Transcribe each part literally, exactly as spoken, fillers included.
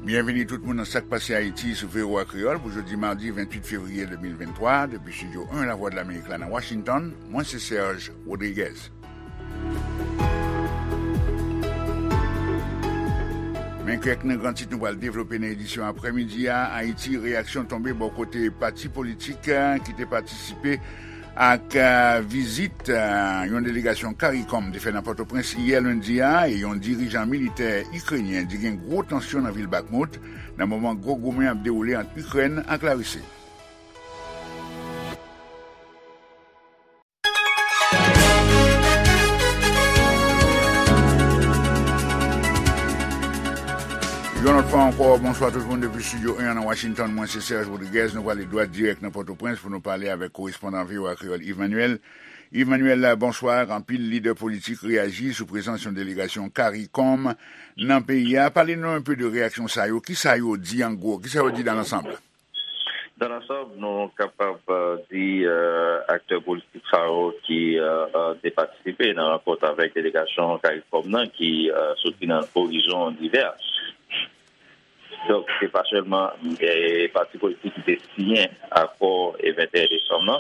Byenvini tout moun nan Sa k Pase Ayiti sou V O A Kreyòl pou jodi madi venntuit fevriye de mil venntwa, depi estidyo en Lavwadlamerik la nan Washington, mwen se Serge Rodriguez. Men kèk nan gran tit nou pral devlope nan edisyon aprèmidi a. Ayiti, reyaksyon tonbe bò kote pati politik, eh, ki te patisipe ak, eh, vizit, eh, yon delegasyon CARICOM te fè nan Pòtoprens yè lendi a, e yon dirijan militè ikrenyen di gen gwo tansyon nan vil Bakhmut nan moman gwo goumen ap dewoule ant Ikrèn ak Larisi. Yon lòt fwa ankò, bonswa tout moun depi estidyo en an nan Washington. Mwen se Serge Rodriguez. Nou prale dwat dirèk nan Pòtoprens pou nou pale avèk korespondan V O A Kreyòl Yves Manuel. Yves Manuel, bonswa. Anpil lidè politik reyaji sou prezans yon delegasyon CARICOM nan peyi a. Pale nou enpe de reyaksyon sa yo. Kisa yo di an gwo? Kisa yo di dans l'ensemble? Dans l'ensemble, nou kapab, euh, di, euh, aktè politik sa yo ki, euh, euh, te patisipe nan rankont avèk delegasyon CARICOM nan ki, euh, soti nan orizon divè. Donk, se pa sèlman, eh, pati politik ki te siyen akò, eh, venteyen desanm nan.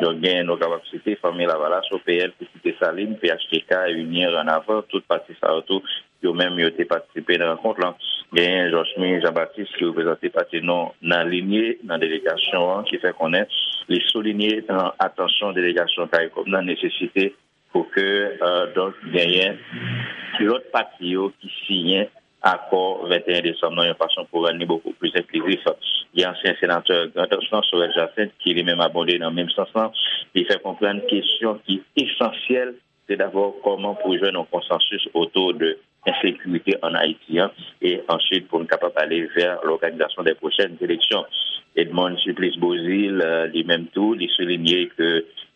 Donk, gen, nou kapab site Fanmi Lavalas, O P L, Pitit Desalin, P H T K, Unyen, Ranavan, tout pati sa yo tou, yo menm yo te patisipe nan rankont lan. Genyen Georges Jean Baptiste ki reprezante pati non alinye nan delegasyon an ki fè konnen li soulinye nan atansyon delegasyon CARICOM nan nesesite pou ke, euh, donk, genyen lòt pati yo ki siyen akò venteyen desanm nan yon fason pou rann li bokou plis enklizif. Gen ansyen senatè Grandans lan, Sorel Jacinthe, ki li menm abonde nan menm sans lan. Li fè konprann kesyon ki esansyèl, se dabò kòman pou jwenn yon konsansis otou de ensekirite ann Ayiti an, e answit pou n kapab ale vè lòganizasyon dè pwochèn eleksyon. Edmonde Supplice Beauzile, euh, li menm tou, li soulinye ke,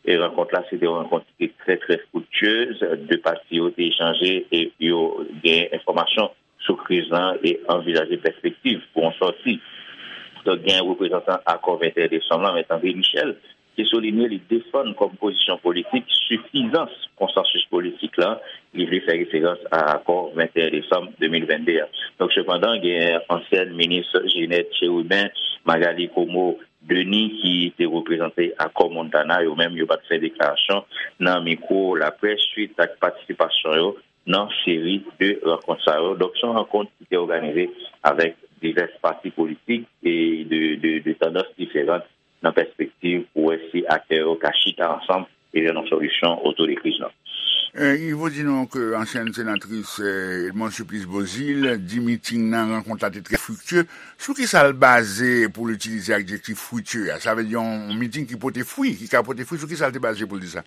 e, rankont la se te yon rankont ki te trè, trè friktyez. De pati yo te echanje e yo gen enfòmasyon sou kriz lan e anvizaje pèspektiv pou yon sòti. Donk, gen reprezantan akò venteyen desanm lan, Mèt André Michel, ki soulinye li defann kòm pozisyon politik sifizans konsansis politik lan, li vle fè referans a akò venteyen desanm de mil vennde a. Donk, sepandan, gen ansyèn minis Ginette Chérubin, Magalie Comeau Denis, ki te reprezante akò Montana, yo menm yo pa t fè deklarasyon nan mikwo laprès swit ak patisipasyon yo nan seri de rankont sa yo. Donk, se yon rankont ki te òganize avèk divès pati politik e de, de, de tandans diferan nan pèspektiv pou wè si aktè yo ka chita ansanm e jwenn yon solisyon otou de kriz lan. Eh, Yves, ou di nou ke ansyèn senatris, eh, Edmonde Supplice Beauzile di miting nan, rankont la te trè friktye. Sou ki sa l baze pou l itilize adjektif friktye a? Sa vle di yon, yon miting ki pote fwi, ki ka pote fwi, sou ki sa l te baze pou l di sa?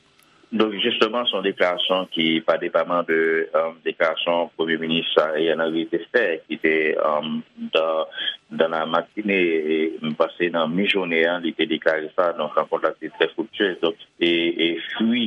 Donk, jisteman, se yon deklarasyon ki pa depaman de, euh, deklarasyon Premye Minis Ariel Henry te fè, ki te, euh, dans, dans la matinée, e m panse nan mijounen an, li te deklare sa. Donk, rankont la te trè friktyez. Donk, e, e fwi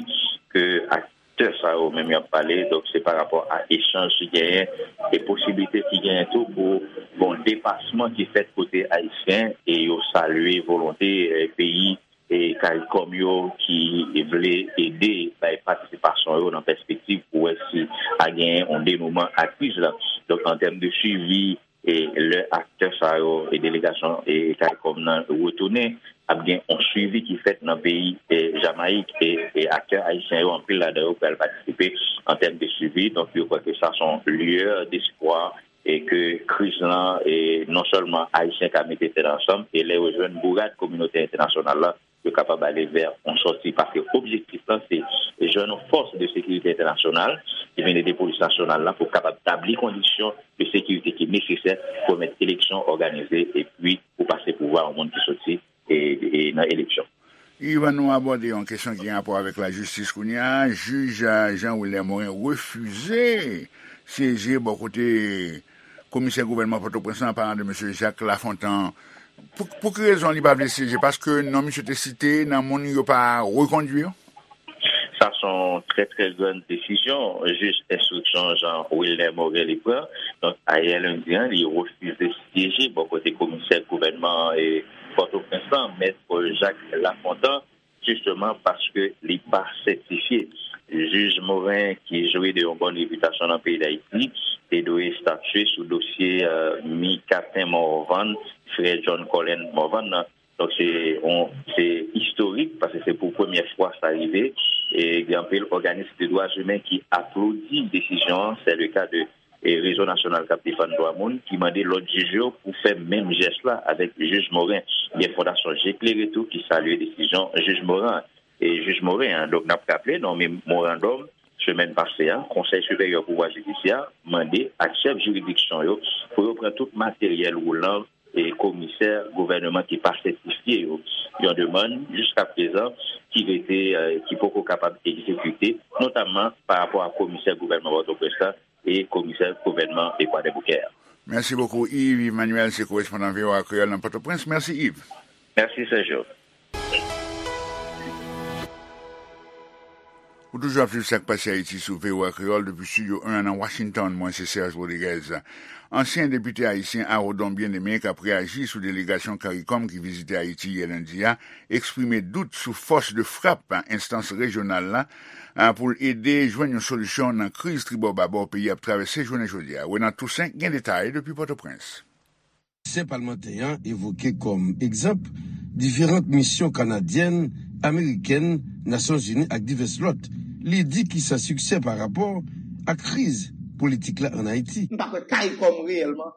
ke aktè sa yo menm y ap pale, donk, se pa rapò a echanj ki genyen e posiblite ki genyen tou pou gon depasman ki fèt kote ayisyen e yo salye volonte, eh, peyi e CARICOM yo ki vle ede bay patisipasyon yo nan pèspektiv pou wè si a genyen yon denouman a kriz la. Donk, an tèm de swivi, e lè aktè sa yo e delegasyon e CARICOM nan retounen, ap gen yon swivi ki fèt nan peyi, e, Jamayik, e, e aktè ayisyen yo, anpil ladan yo pral patisipe an tèm de swivi. Donk, yo kwè ke sa se yon lueur d'espoir e ke kriz lan, e non sèlman ayisyen ka mete tèt ansanm, e lè yo jwenn bourad kominote entènasyonal la, yo kapab ale vè yon sòti, paske objektif lan se jwenn yon fòs de sekirite entènasyonal ki vin ede polis nasyonal la pou kapab tabli kondisyon de sekirite ki nesesè pou pèmèt eleksyon òganize epi pou pase pouvwa yon moun ki soti e, e nan eleksyon. Yves, ann nou abòde yon kesyon ki gen rapò avèk lajistis kounye a. Jij, eh, Jean Wilner Morin refize syeje bò kote komisè gouvènman Pòtoprens lan, an palan de mesye Jacques Lafontant. Pou, pou ki rezon li pa vle syeje? Paske non misye te site nan moun yo pa rekondwi yo? Sa se yon trè, trè grann desizyon jij enstriksyon Jean Wilner Morin li pran. Donk, ayè lendi an, li refize syeje bò kote komisè gouvènman, e, Pòtoprens lan, Mèt Paul Jacques Lafontant, jisteman paske li pa sètifye. Jij Morin, ki jwi de yon bòn repitasyon nan peyi Dayiti, te dwe estatye sou dosye, euh, Micatin Morvan, frè John Colin Morvan nan. Donk, se yon, se istorik, paske se pou premyè fwa sa rive. E gen anpil òganis de dwa imen ki aplodi desizyon an. Se le ka de, e, Rezo Nasyonal k ap Defann Dwa Moun, ki mande lòt jij yo pou fè menm jès la avèk jij Morin. Gen Fondasyon Je Klere tou ki salye desizyon jij Morin an. E jij Morin an, donk, n ap raple, nan memorandòm semèn pase a, Konsèy Siperyè Pouvwa Jidisyè mande ak chèf jiridiksyon yo pou yo pran tout materyèl woulan e komisè gouvènman ki pa sètifye yo. Yon demann, jiskaprezan, ki rete, eh, ki poko kapab egzekite, notamman pa rapò a komisè gouvènman Pòtoprens la e komisè gouvènman Kwadèboukè a. Mèsi bokou, Yves Emmanuel, se korespondan V O A Kreyòl nan Pòtoprens. Mèsi, Yves. Mèsi, Sergio. Ou toujou ap swiv Sa k Pase Ayiti sou V O A Kreyòl depi Estidyo en an nan Washington. Mwen se Serge Rodriguez. Ansyen depite ayisyen Arodon Bien-Aimé, k ap reyaji sou delegasyon CARICOM ki vizite Ayiti yè lendi a, eksprime dout sou fòs de frap enstans rejyonal la, a, pou l ede jwenn yon solisyon nan kriz tribò babò peyi a ap travèse jounen jodi a. Renan Toussaint gen detay depi Pòtoprens. Ansyen palmantè an evoke kòm egzanp diferan misyon kanadyèn, amerikèn, Nasyonzini ak divès lòt. Li di ki san siksè pa rapò ak kriz politik la ann Ayiti. M pa kwè CARICOM reyèlman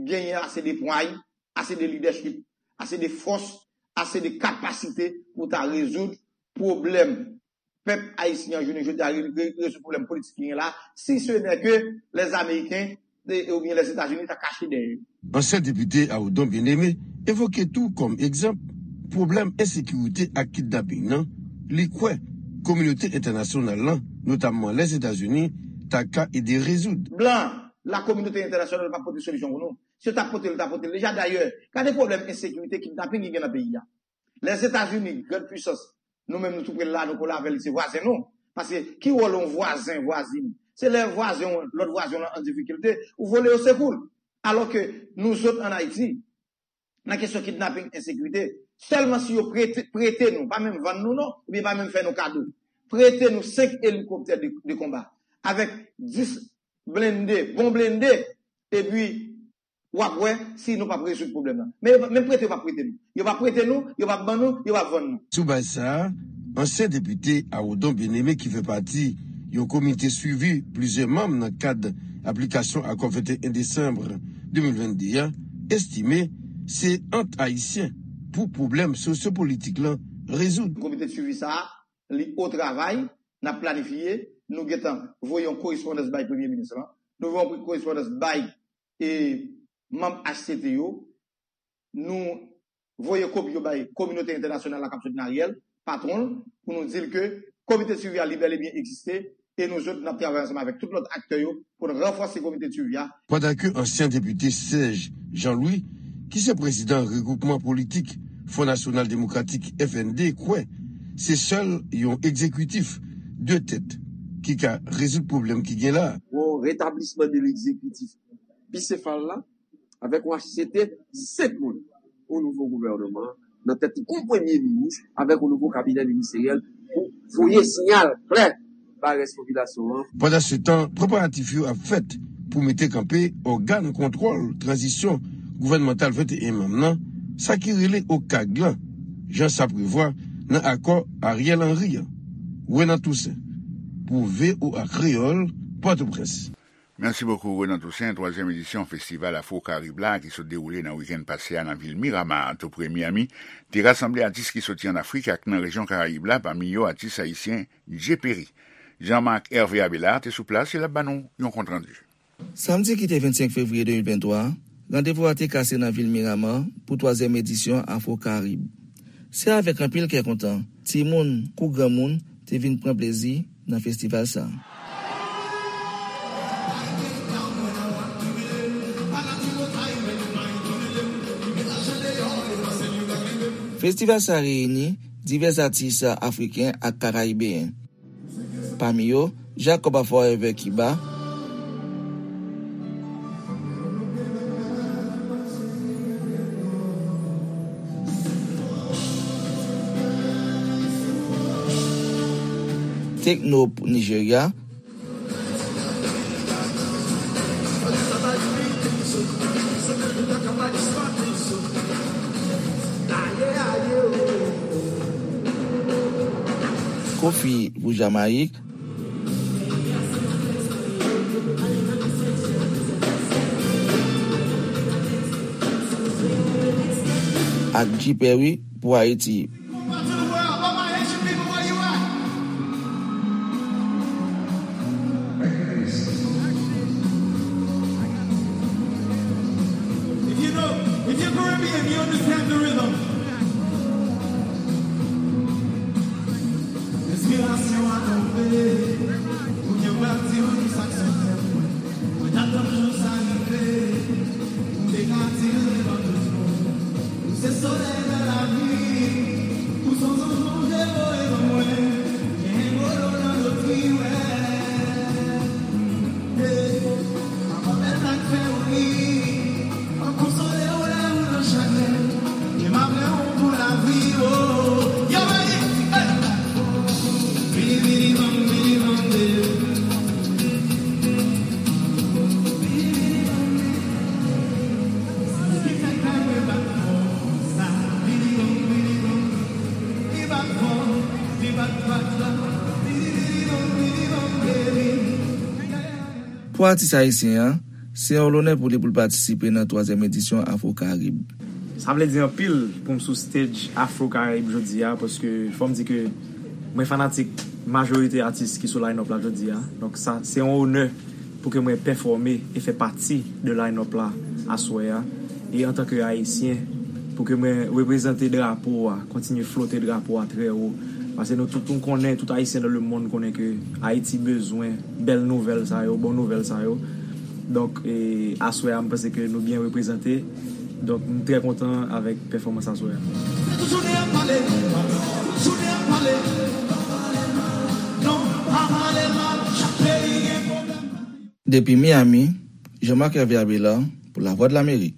genyen ase de pway, ase de lidèchip, ase de fòs, ase de kapasite pou ta rezoud pwoblèm pèp ayisyen an jounen jodi a, re-, re-, rezoud pwoblèm politik ki gen la, si ce n'est que les Américains, e, oubyen Lèzetazini ta kache dèyè yo. Ansyen depite Arodon Bien-Aimé evoke tou kòm egzanp pwoblèm ensekirite ak kidnaping nan, li kwè kominote entènasyonal lan, notamman Lèzetazini, ta ka ede rezoud. Blan, la kominote entènasyonal pa pote solisyon pou nou. Si yo ta pote l, yo ta pote l deja. Dayè, gade pwoblèm ensekirite, kidnaping ki gen nan peyi a. Lèzetazini, grand pwisans, nou menm nou tou pre l la, nou kole avè l, li se vwazen nou. Paske ki wòl yon vwazen, vwazin? Se lè vwazen w, lòt vwazen w lan an difikilte, ou vole yo sekou l. Alò ke nou zòt ann Ayiti, nan kesyon kidnaping, ensekirite, sèlman si yo prete, prete nou, pa menm vann nou non, oubyen pa menm fè nou kado, prete nou senk elikoptè de, de konba, avèk dis blende, bon blende, epi w ap wè si nou p ap rezoud pwoblèm nan. Men yo p-, menm prete yo p ap prete nou. Yo p ap prete nou, yo p ap ban nou, yo p ap vann nou. Sou baz sa a, ansyen depite Arodon Bien-Aimé ki fè pati yon komite swivi plizyè manm nan kad aplikasyon akò venteyen desanm de mil vennde a, estime se ant ayisyen pou pwoblèm sosyopolitik lan rezoud. Komite de swivi sa a, li o travay, n ap planifye, nou gentan voye yon korespondans bay premye minis lan, nou voye yon korespondans bay e manm H C T yo, nou voye kopi yo bay kominote entènasyonal la k ap soutni Ariel, patwon l, pou nou di l ke komite de swivi a li bèl e byen egziste, e nou zòt, n ap travay ansanm avèk tout lòt aktè yo pou n ranfòse komite de swivi a. Pandan ke ansyen depite Serge Jean-Louis, ki se prezidan regwoupman politik Fon Nasyonal Demokratik, F N D, kwè se sèl yon egzekitif de tèt ki ka rezoud pwoblèm ki gen la. Yon retablisman de legzekitif bisefal la, avèk yon H C T senk moun, yon nouvo gouvènman, nan tèt yon premye minis, avèk yon nouvo kabinè ministeryèl pou voye siyal klè bay rès popilasyon an. Pandansetan, preparatif yo ap fèt pou mete kanpe ògàn kontwòl tranzisyon gouvènmantal venteyen manm nan, sa ki rele OCAG lan, jan sa prevwa nan akò Ariel Henry an. Renan Toussaint, pou V O A Kreyòl, Pòtoprens. Mèsi bokou, Renan Toussaint. Twazyèm edisyon festival Afro Karib la, ki sot dewoule nan wikenn pase a nan vil Miramar, tou pre Miami, te rasanble atis ki soti ann Afrik ak nan rejyon Karayib la, pami yo atis ayisyen Dje Peri. Jean-Marc Hervé Abelard te sou plas e l ap ban nou yon kontrandi. Samdi ki te vennsenk fevriye de mil venntwa a, randevou a te kase nan vil Miramar pou twazyèm edisyon Afro Karib. Se avèk anpil kè kontan, timoun kou granmoun te vin pran plezi nan festival sa a. Festival sa a reyini divès atis afriken ak karayibeyen. Pami yo, Jacob a Forever Cuba, Tekno Nigeria, Kofi pou Jamayik, ak G Perry pou Ayiti. If you know, if you're Caribbean, you understand the rhythm. Enspirasyon a tonbe, ou gen pral di m sa k sot tèt mwen. Mwen t ap tann jou sa rive, m te ka di l devan tout moun. Ou se solèy nan lavi, ou se yon zanj Bondye voye ban mwen. Gen gwo dlo nan lotri, wè. Hey, papa bèl sa k fè w ri. M ap konsole w lè ou nan chagren. E m ap renmen w pou lavi, oh. Y'all ready? Hey! Bidi, bidi, bam, bidi, bam, de. Bidi, bidi, bam, bidi, bam, de. Ki fè kè mwen bat fò konsa? Bidi, bam, bidi, bam. Li bat fò, li bat, bat, bat. Bidi, bidi, bam, bidi, bam, de. Pou atis ayisyen an, se yon lonè pou li pou l patisipe nan twazyèm edisyon Afro Karib. Sa vle di anpil pou m sou stage Afro Karib jodi a, paske fò m di ke mwen fanatik majorite atis ki sou line-up la jodi a. Donk sa, se yon onè pou ke mwen pèfòme e fè pati de line-up la aswè a. E antanke ayisyen, pou ke mwen reprezante drapo a, kontinye flote drapo a trè wo. Paske nou tout nou konnen, tout ayisyen nan lemonn konnen ke Ayiti bezwen bèl nouvèl sa yo, bon nouvèl sa yo. Donk, e, aswè a, m panse ke nou byen reprezante. Donk, m trè kontan avèk pèfòmans aswè a. Jounen ap pale, jounen ap pale. Non, pa pale mal, chak peyi gen pwoblèm. Depi Miami, Jean-Marc Hervé Abélard pou Lavwadlamerik.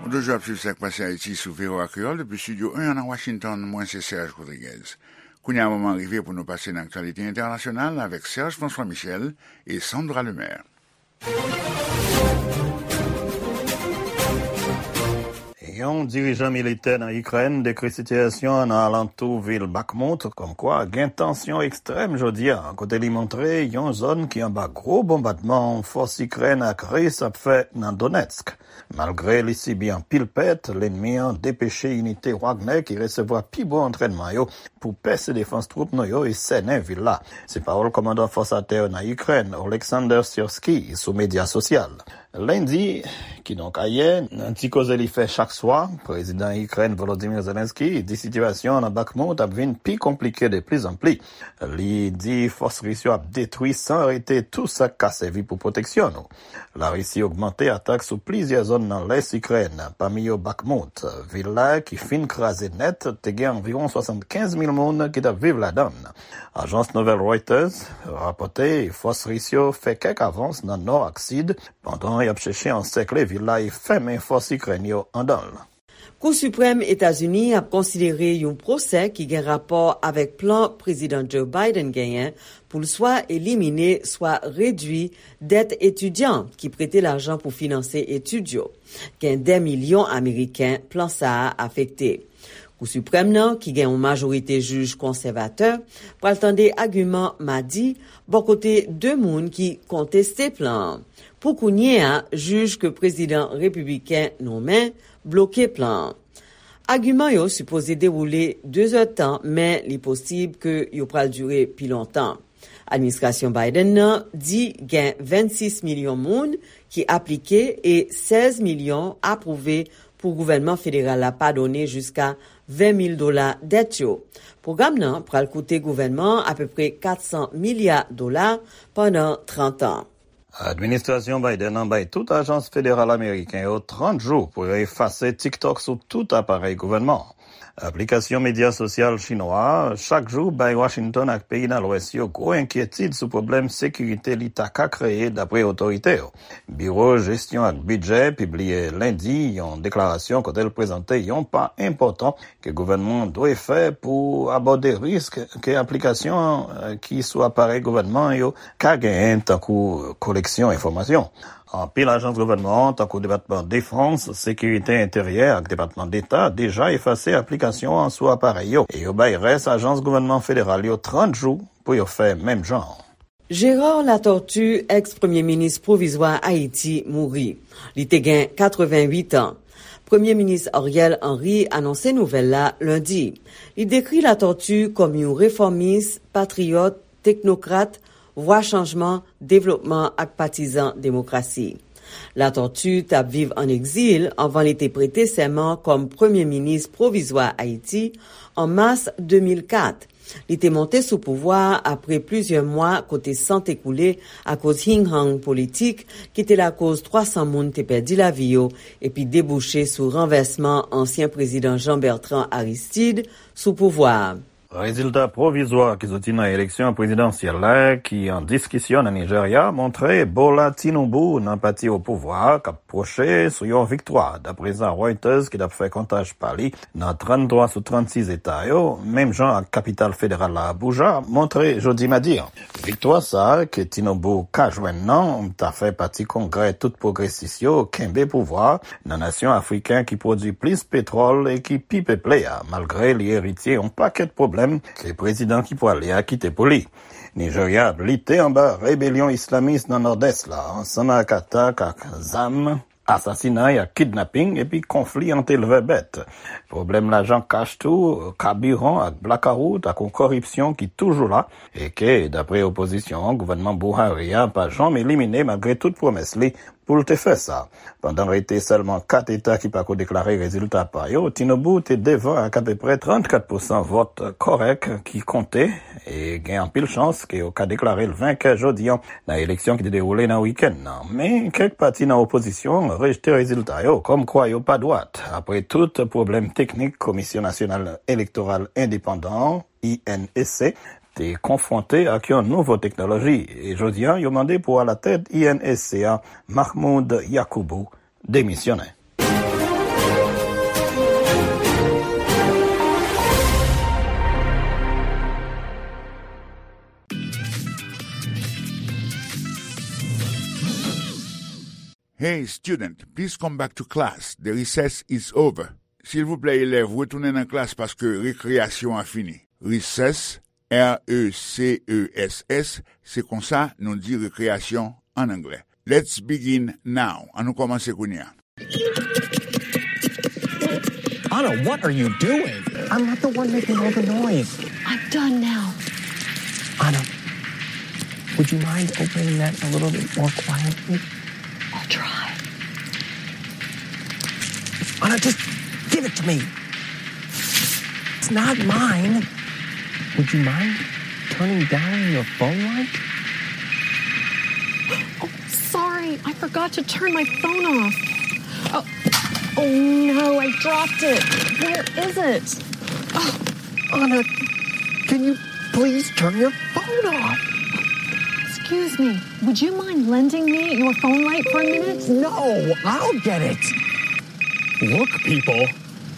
Ou toujou ap swiv Sa k Pase Ayiti sou V O A Kreyòl depi Estidyo en an nan Washington. Mwen se Serge Rodriguez. Kounye a, moman rive pou nou pase nan aktyalite entènasyonal avèk Serge François Michel e Sandra Lemaire. Yon dirijan militè nan Ikrèn dekri sitiyasyon an nan alantou vil Bakhmut, kòmkwa gen tansyon ekstrèm jodi a, kote li montre yon zòn ki anba gwo bonbadman fòs Ikrèn ak Ris ap fè nan Donetsk. Malgre li sibi anpil pèt, lènmi an depeche inite Wagner ki resevwa pi bon antrènman yo pou pèse defans twoup nou yo e sènen vil la. Se pawòl kòmandan fòs atè yo nan Ikrèn, Oleksandr Syrskyi, sou medya sosyal. Lendi, kidonk ayè, nan ti koze li fè chak swa, prezidan Ikrèn Volodymyr Zelensky di sitiyasyon an nan Bakhmut ap vin pi konplike de plizanpli. Li di fòs ris yo ap detwi san rete tou sa k ka sèvi pou pwoteksyon nou. Larisi ogmante atak sou plizyè zòn nan lès Ikrèn, pami yo Bakhmut. Vil la, ki fin kraze nèt, te gen anviwon swasannkenz mil moun ki t ap viv ladan l. Ajans nouvèl Reuters rapòte fòs ris yo fè kèk avans nan nò ak sid, pandan y ap chèche ansèkle vil la e fèmen fòs Ikrèn yo anndan l. Kou Siprèm Etazini ap konsidere yon pwosè ki gen rapò avèk plan Prezidan Joe Biden genyen pou l swa elimine, swa redui dèt etidyan ki prete lajan pou finanse etid yo. Gen dè milyon Ameriken plan sa a afekte. Kou Siprèm nan, ki gen yon majorite jij konsèvatè, pral tande agiman madi bò kote de moun ki konteste plan an. Pou kounye a, jij ke prezidan repibliken nonmen bloke plan an. Agiman yo sipoze dewoule de zèdtan, men li posib ke yo pral dire pi lontan. Administrasyon Biden nan di gen vennsis milyon moun ki aplike e sèz milyon apwouve pou gouvènman federal la padone jiska ven mil dola dèt yo. Pwogram nan pral koute gouvènman an apepre kat san milya dola pandan trant an. Administrasyon Biden nan bay tout ajans federal ameriken yo trant jou pou yo efase TikTok sou tout aparèy gouvènman an. Aplikasyon medya sosyal chinwa a chak jou bay Washington ak peyi nan Lwès yo gwo enkyetid sou pwoblèm sekirite li ta ka kreye, dapre otorite yo. Biwo Jesyon ak Bidjè pibliye lendi yon deklarasyon kote l prezante yon pa enpòtan ke gouvènman an dwe fè pou abòde risk ke aplikasyon, eh, ki sou aparèy gouvènman yo ka genyen, tankou koleksyon enfòmasyon. Anpil ajans gouvènman an, tankou Depatman Defans, Sekirite Enteryè ak Depatman Deta, deja efase aplikasyon an sou aparèy yo, e yo bay rès ajans gouvènman federal yo trant jou pou yo fè menm jan. Gérard Latortue, èks premye minis pwovizwa Ayiti, mouri. Li te gen katrevenwit an. Premye minis Ariel Henry anonse nouvèl la lendi. Li dekri Latortue kòm yon refòmis, patriyòt, teknokrat, vwa chanjman, devlopman ak patizan demokrasi. Latortue t ap viv ann egzil anvan li te prete sèman kòm premye minis pwovizwa Ayiti an mas de mil kat. Li te monte sou pouvwa a apre plizyè mwa kote san te koule akoz hing-hang politik ki te lakoz twa san moun te pèdi lavi yo epi debouche sou ranvèsman ansyen prezidan Jean Bertrand Aristide sou pouvwa a. Rezilta pwovizwa ki soti nan eleksyon prezidansyèl la ki an diskisyon nan Nijerya montre Bola Tinubu nan pati o pouvwa a k ap pwoche sou yon viktwa, dapre sa Reuters ki t ap fè kontaj pa li nan tranntwa sou trannsis eta yo, menm jan ak kapital federal la Abuja, montre jodi madi an. Viktwa sa a ke Tinubu ka jwenn nan ta fè pati kongrè tout pwogresis yo kenbe pouvwa a nan nasyon afriken ki pwodui plis petwòl e ki pi peple a, malgre li eritye yon pakèt pwoblèm ke prezidan ki pwale a kite pou li. Nijerya ap lite anba rebelyon islamis nan nòdès la, ansanm ak atak ak zam, asasinay ak kidnaping, epi konfli ant elvè bèt. Pwoblèm lajan kach tou, kabiran ak blakawout ak yon koripsyon ki toujou la, e ke, dapre opozisyon an, gouvènman Buhari a pa janm elimine malgre tout pwomès li pou l te fè sa. Pandan rete sèlman kat eta ki pako deklare rezilta pa yo, Tinubu te devan ak apeprè trannkat pousan vòt kòrèk ki konte, e gen anpil chans ke yo ka deklare l venkè jodi an nan eleksyon ki te dewoule nan wikenn nan. Men, kèk pati nan opozisyon an rejte rezilta yo, kòmkwa yo pa dwat, apre tout pwoblèm teknik Komisyon Nasyonal Elektoral Endepandan an, I N E C, te konfwonte ak yon nouvo teknoloji, e jodi an, yo mande pou alatèt I N E C a, Mahmoud Yakubu, demisyonnen. Hey, student, please come back to class. The recess is over. Silvouplè, elèv, retounen nan klas paske rekreyasyon an fini. Recess, R E C E S S, se konsa nou di rekreyasyon an anglè. Let's begin now. Ann nou kòmanse kounye a. Anna, what are you doing? I'm not the one making all the noise. I'm done now. Anna, would you mind opening that a little bit more quietly? I'll try. Anna, just give it to me. It's not mine. Would you mind turning down your phone light? Oh, sorry, I forgot to turn my phone off. Oh, oh no, I dropped it. Where is it? Oh, Anna, can you please turn your phone off? Excuse me, would you mind lending me your phone light for a minute? No, I'll get it. Look, people,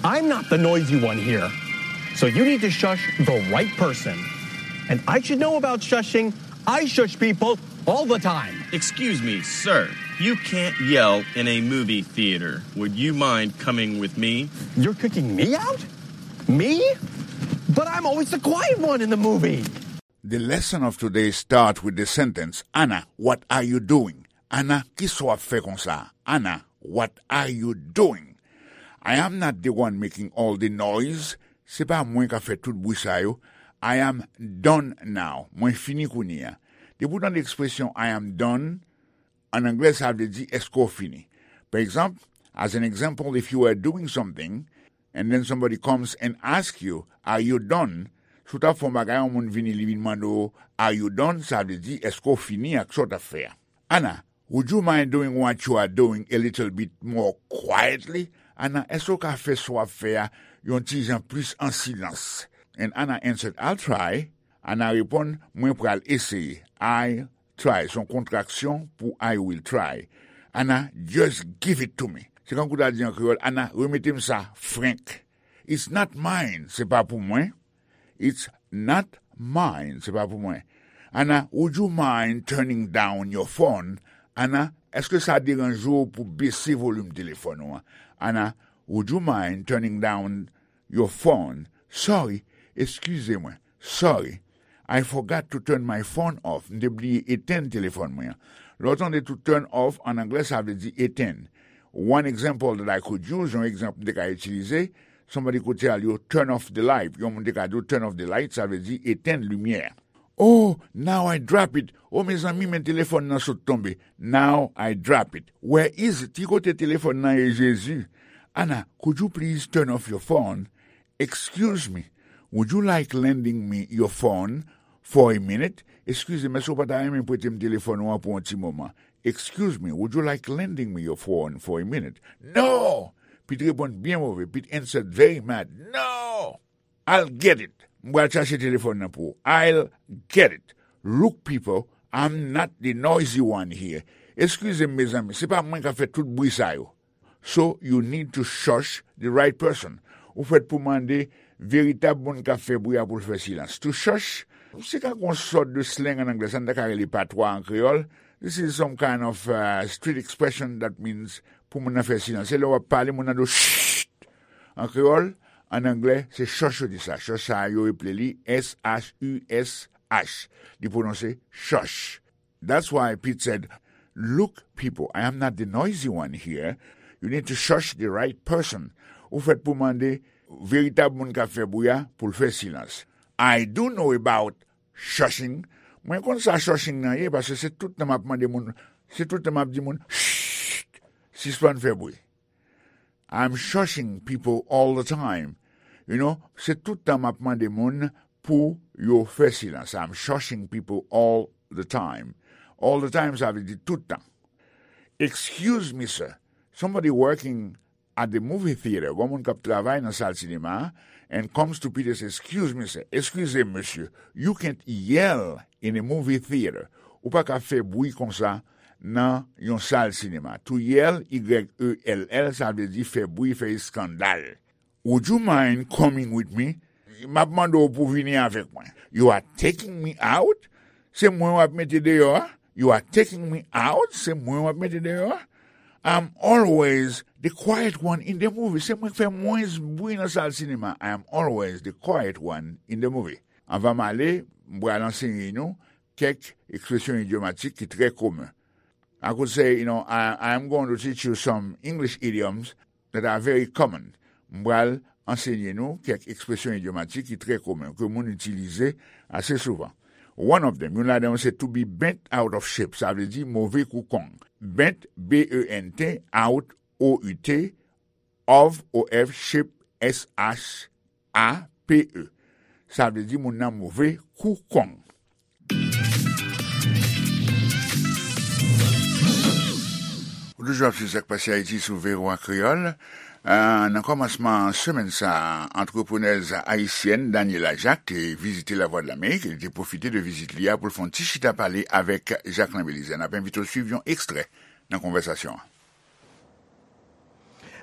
I'm not the noisy one here. So you need to shush the right person. And I should know about shushing. I shush people all the time. Excuse me, sir. You can't yell in a movie theater. Would you mind coming with me? You're kicking me out? Me? But I'm always the quiet one in the movie. The lesson of today start with the sentence, Anna, what are you doing? Anna, kisa w ap fè konsa? Anna, what are you doing? I am not the one making all the noise. Se pa mwen k ap fè tout bri sa yo. I am done now. Mwen fini kounye a. Depi w tande ekspresyon I am done, an anglè, sa vle di, èske w fini? Pa egzanp, as an example, if you were doing something, and then somebody comes and ask you, are you done? Si w t ap fè yon bagay, yon moun vini, li vin mande w, are you done? Sa vle di, èske w fini ak sa w t ap fè a? Anna, would you mind doing what you are doing a little bit more quietly? Anna, èske w ka fè sa w ap fè a yon ti jan plis an silans? And Anna answered, I'll try. Anna reponn, mwen pral eseye. I try, se yon kontraksyon pou I will try. Anna, just give it to me. Se kankou w ta di an kreyòl, Anna, remete m sa frenk. It's not mine, se pa pou mwen. It's not mine, se pa pou mwen. Anna, would you mind turning down your phone? Anna, Èske sa deranje w pou bese volim telefòn ou an? Ana, would you mind turning down your phone? Sorry, eskize mwen. Sorry. I forgot to turn my phone off. M te bliye etenn telefòn mwen an. Lè w tande to turn off, an anglè, sa vle di etenn. One example that I could use, yon egzanp m te ka itilize, somebody could tell you, "Turn off the light." Yon moun te ka di w, "Turn off the light," sa vle di etenn limyè. "Oh, now I drop it." Oh, mezanmi, men telefòn nan sot tonbe. "Now I drop it." "Where is it?" Ki kote telefòn nan ye, Jezi? "Ana, could you please turn off your phone?" "Excuse me, would you like lending me your phone for a minute?" "Eskize m, èske w pa ta renmen prete m telefòn ou an pou yon ti moman?" "Excuse me, would you like lending me your phone for a minute?" "No!" Pete reponn byen move. Pete answered very mad. "No! I'll get it." M pral chache telefòn nan pou ou. "I'll get it. Look, people, I'm not the noisy one here." Eskize m, mezanmi, se pa mwen k ap fè tout bri sa yo. So, you need to shush the right person. Ou fèt pou mande veritab moun k ap fè bri a pou l fè silans. To shush, se ka yon sòt de slang an anglè, sa n ta ka rele patwa an kreyòl. This is some kind of uh, street expression that means pou moun nan fè silans. Se lè w ap pale, moun nan di w, "Shh!" An kreyòl, an anglè, se chòch yo di sa. Chòch sa a, yo eple li S H U S H. Li pwononse chòch. That's why Pete said, "Look, people, I am not the noisy one here. You need to shush the right person." Ou fèt pou mande veritab moun k ap fè bri a pou l fè silans. "I do know about shushing." Mwen konn sa shushing nan ye, paske se tout tan m ap mande moun, se tout tan m ap di moun, "Shh! Sispann fè bri." I'm shushing people all the time. You know, se tout tan m ap mande moun pou yo fè silans. I'm shushing people all the time. All the time, sa vle di tout tan. "Excuse me, sir. Somebody working at the movie theater." Gon moun k ap travay nan sal sinema a, and comes to Peter and says, "Excuse me, sir." "Eskize m, mesye. You can't yell in a movie theater." Ou pa ka fè bri konsa nan yon sal sinema. To yell, Y E L L, sa vle di fè bri, fè eskandal. "Would you mind coming with me?" M ap mande w pou vini avèk mwen. "You are taking me out?" Se mwen w ap mete deyò a? "You are taking me out?" Se mwen w ap mete deyò a? "I'm always the quiet one in the movie." Se mwen k fè mwens bri nan sal sinema. "I am always the quiet one in the movie." Anvan m ale, m pral ansenye nou kèk ekspresyon idyomatik ki trè komen. I could say, you know, I, I am going to teach you some English idioms that are very common. M pral ansenye nou kèk ekspresyon idyomatik ki trè komen, ke moun itilize ase souvan. One of them, youn ladan yo se to be bent out of shape, sa vle di move kou kong. Bent, B E N T, out, O U T, of, O F, shape, S H A P E. Sa vle di moun nan move kou kong. Ou toujou ap swiv Sa k Pase Ayiti sou V O A Kreyòl. Ah, nan kòmansman semèn sa a, antreprenèz ayisyèn Daniela Jacques te vizite Lavwadlamerik e li te pwofite de vizit li a pou l fè yon ti chita pale avèk Jacquelin Belizaire. N ap envite w swiv yon ekstrè nan konvèsasyon an.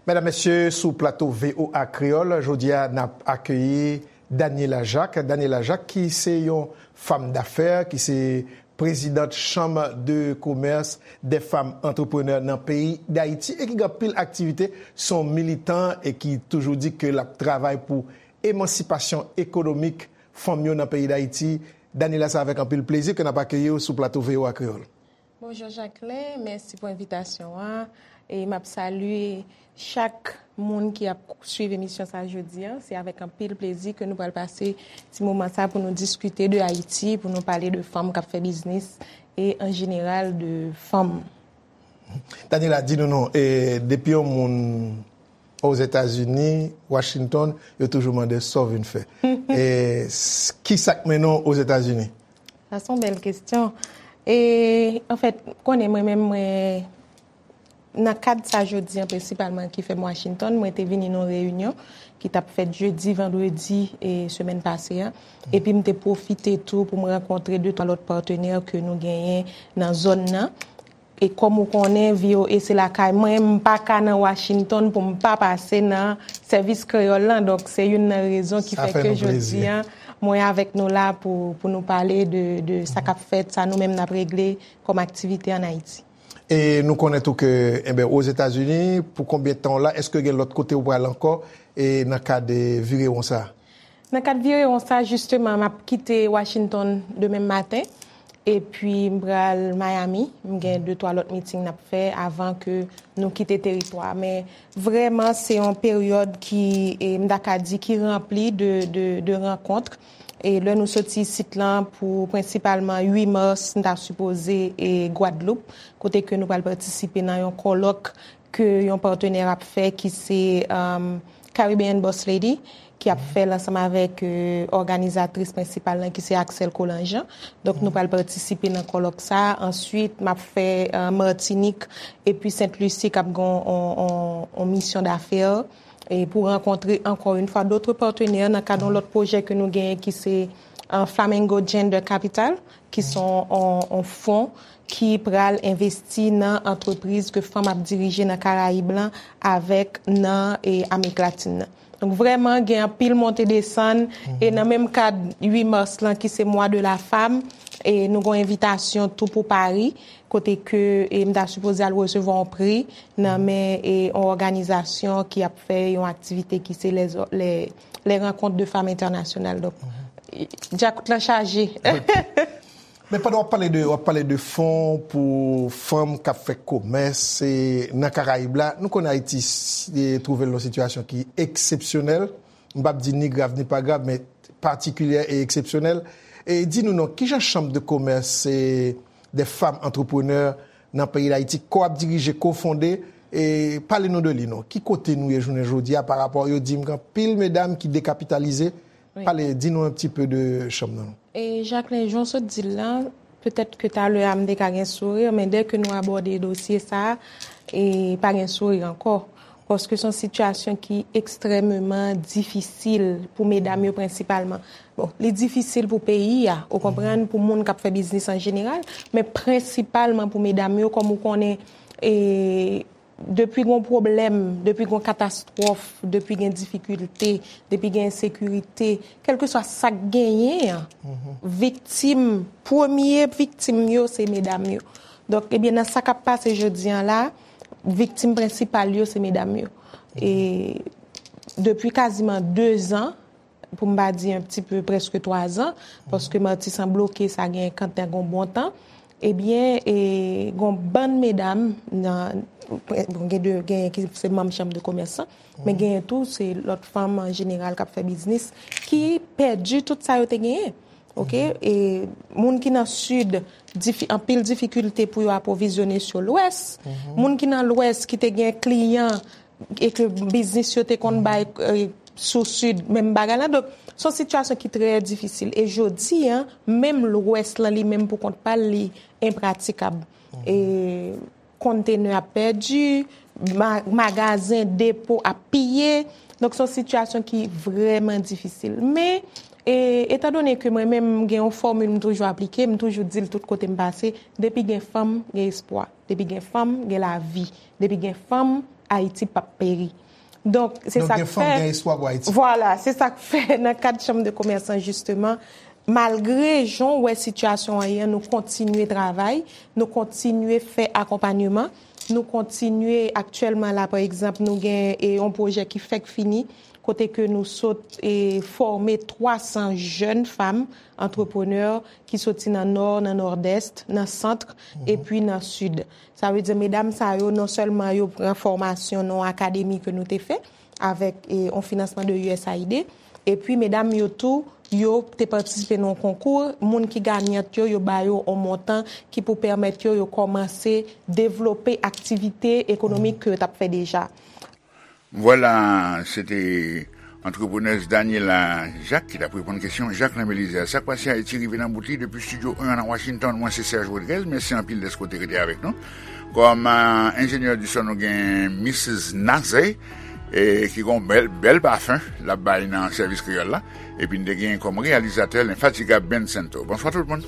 Medam, mesye, sou plato V O A Kreyòl, jodi a, n ap akeyi Daniela Jacques. Daniela Jacques, ki se yon fanm dafè, ki se prezidant Chanm de Komès dè Fanm Antreprenè nan peyi Dayiti e ki gen anpil aktivite, se yon militan e ki toujou di ke l ap travay pou emansipasyon ekonomik fanm yo nan peyi Dayiti. Daniela, se avèk anpil plezi ke n ap akeyi w sou plato V O A Kreyòl. Bonjou Jacquelin, mèsi pou envitasyon an. E m ap salye chak moun ki ap swiv emisyon sa a jodi a. Se avèk anpil plezi ke nou pral pase ti moman sa a pou nou diskite de Ayiti, pou nou pale de fanm k ap fè biznis e an jeneral de fanm. Daniela, di nou non, e, depi yon moun Ozetazini, Washington, yo toujou mande sa w vin fè. E, s-, ki sa k mennen w Ozetazini? Sa se yon bèl kesyon. E, anfèt, konnen mwen menm, mwen, nan kad sa jodi an prensipalman ki fè m Washington, mwen te vini nan yon reyinyon ki t ap fèt jedi, vandredi, e, semèn pase a. Epi m te pwofite tou pou m rankontre de twa lòt patnè ke nou genyen nan zòn nan. E kòm ou konnen, V O A se lakay mwen, m pa ka nan Washington pou m pa pase nan sèvis kreyòl lan. Donk, se youn nan rezon ki fè ke jodi a, mwen avèk nou la pou, pou nou pale de, de sa k ap fèt, sa nou menm n ap regle kòm aktivite ann Ayiti. E nou konnen tou ke, enben, Ozetazini, pou konbyen tan w la, èske gen lòt kote w pral ankò, e nan kad, e, virewon sa? Nan kad virewon sa, jisteman, m ap kite Washington demen maten, epi m pral Miami. M gen de twa lòt meeting n ap fè avan ke nou kite teritwa. Men vrèman, se yon peryòd ki, e, m ta ka di, ki ranpli de, de, de rankont. E lè nou soti isit lan pou prensipalman uit mas, n ta sipoze e Gwadloup, kote ke nou pral patisipe nan yon kòlòk ke yon patnè ap fè ki se, um, Caribbean Boss Lady, ki ap fè l ansanm avèk, euh, òganizatris prensipal lan ki se Axel Colangean. Donk, nou pral patisipe nan kòlòk sa. Answit, m ap fè, euh, Matinik epi Sent Lisi k ap gen yon, yon, yon misyon dafè. E pou rankontre, ankò yon fwa, dòt patnè nan kad yon lòt pwojè ke nou genyen ki se, euh, Flamingo Gender Capital, ki se yon, yon, yon fon ki pral envesti nan antrepriz ke fanm ap dirije nan Karayib lan avèk nan, e, Amerik Latin nan. Donk, vrèman, gen anpil monte desann, e nan menm kad uit mas lan, ki se mwa de la femme, e nou gen yon envitasyon tou pou Pari, kote ke, e, m ta sipoze al resevwa yon pri nan men, e, yon òganizasyon ki ap fè yon aktivite ki se les, les, les rencontres de femmes internationales. Donk, e, dyakout lan chaje. Men pandan w ap pale de, w ap pale de fon pou fanm k ap fè komès, e, nan Karayib la, nou konnen Ayiti s-, e, twouve l nan yon sitiyasyon ki eksepsyonèl. M p ap di ni grav ni pa grav, men patikilyè e eksepsyonèl. E di nou non, kijan Chambre de Commerce, e, des femmes entrepreneurs nan peyi Dayiti, ke w ap dirije, ke w fonde, e pale nou de li non. Ki kote nou ye jounen jodi a parapò, yo di m gen anpil medam ki dekapitalize? Wi. Pale, di nou un petit peu de chanm nan non. E Jacqueline, jan w sot di l lan, petèt ke talè a m te ka gen souri, men dè ke nou abòde dosye sa a, e pa gen souri ankò. Paske se yon sitiyasyon ki ekstrèmeman difisil pou medam yo prensipalman. Bon, li difisil pou peyi a, ou konprann, pou moun k ap fè biznis an jeneral, men prensipalman pou medam yo, kòm ou konnen, e, depi gon pwoblèm, depi gon katastwòf, depi gen difikilte, depi gen ensekirite, kèlkeswa sa k genyen an, viktim, premye viktim yo, se medam yo. Donk, ebyen, nan sa k ap pase jodi an la, viktim prensipal yo, se medam yo. E depi kaziman de zan, pou m pa di un petit peu, prèske twa zan, paske Matisan bloke sa gen kantan gon bon tan, ebyen, e, gon bann medam nan, bon, gen de, gen ki se manm Chanm de Komès lan, men genyen tou, se lòt fanm an jeneral k ap fè biznis, ki pèdi tout sa yo te genyen. Oke? E moun ki nan Sid, difi-, anpil difikilte pou yo apwovizyone sou Lwès. Moun ki nan Lwès ki te gen kliyan e ke biznis yo te konn bay, e, sou Sid, menm bagay la. Donk, se yon sitiyasyon ki trè difisil. E jodi a, menm Lwès lan li menm pou kont pa l, li enpratikab. E kontenè ap pèdi, ma-, magazen, depo ap piye. Donk, se yon sitiyasyon ki vrèman difisil. Men, e, etandone ke mwen menm, m gen yon fòmil m toujou aplike, m toujou di l tout kote m pase, depi gen fanm, gen espwa. Depi gen fanm, gen lavi. Depi gen fanm, Ayiti p ap peri. Donk, se sa k fè. Donk, gen fanm, gen espwa pou Ayiti. Vwala, se sa k fè nan kad Chanm de Komès lan, jisteman, malgre jan w wè sitiyasyon an ye an, nou kontinye travay, nou kontinye fè akonpanyeman, nou kontinye aktyèlman la, pa egzanp, nou gen, e, yon pwojè ki fèk fini, kote ke nou sot, e, fòme twa san jèn fanm antreprenè ki soti nan Nò, nan Nòdès, nan Sant, epi nan Sid. Sa vle di, medam sa yo, non sèlman yo pran fòmasyon nan yon akademi ke nou te fè avèk, e, yon finansman de U S A I D, epi medam yo tou, yo te patisipe nan yon konkou, moun ki ganyant yo, yo ba yo yon montan ki pou pèmèt yo, yo kòmanse devlope aktivite ekonomik ke yo t ap fè deja. Vwala, se te antreprenèz Daniela Jacques ki t ap reponn kesyon Jacquelin Belizaire. Sa k pase Ayiti rive nan bout li depi Estidyo en an nan Washington. Mwen se Serge Rodriguez. Mèsi anpil dèske w te rete avèk nou. Kòm, euh, enjenyè di son, nou gen Missis Naze, e ki gon bèl, bèl pafen l ap bay nan sèvis kreyòl la. Epi n te gen kòm reyalizatè lenfatigab Ben Sento. Bonswa tout moun.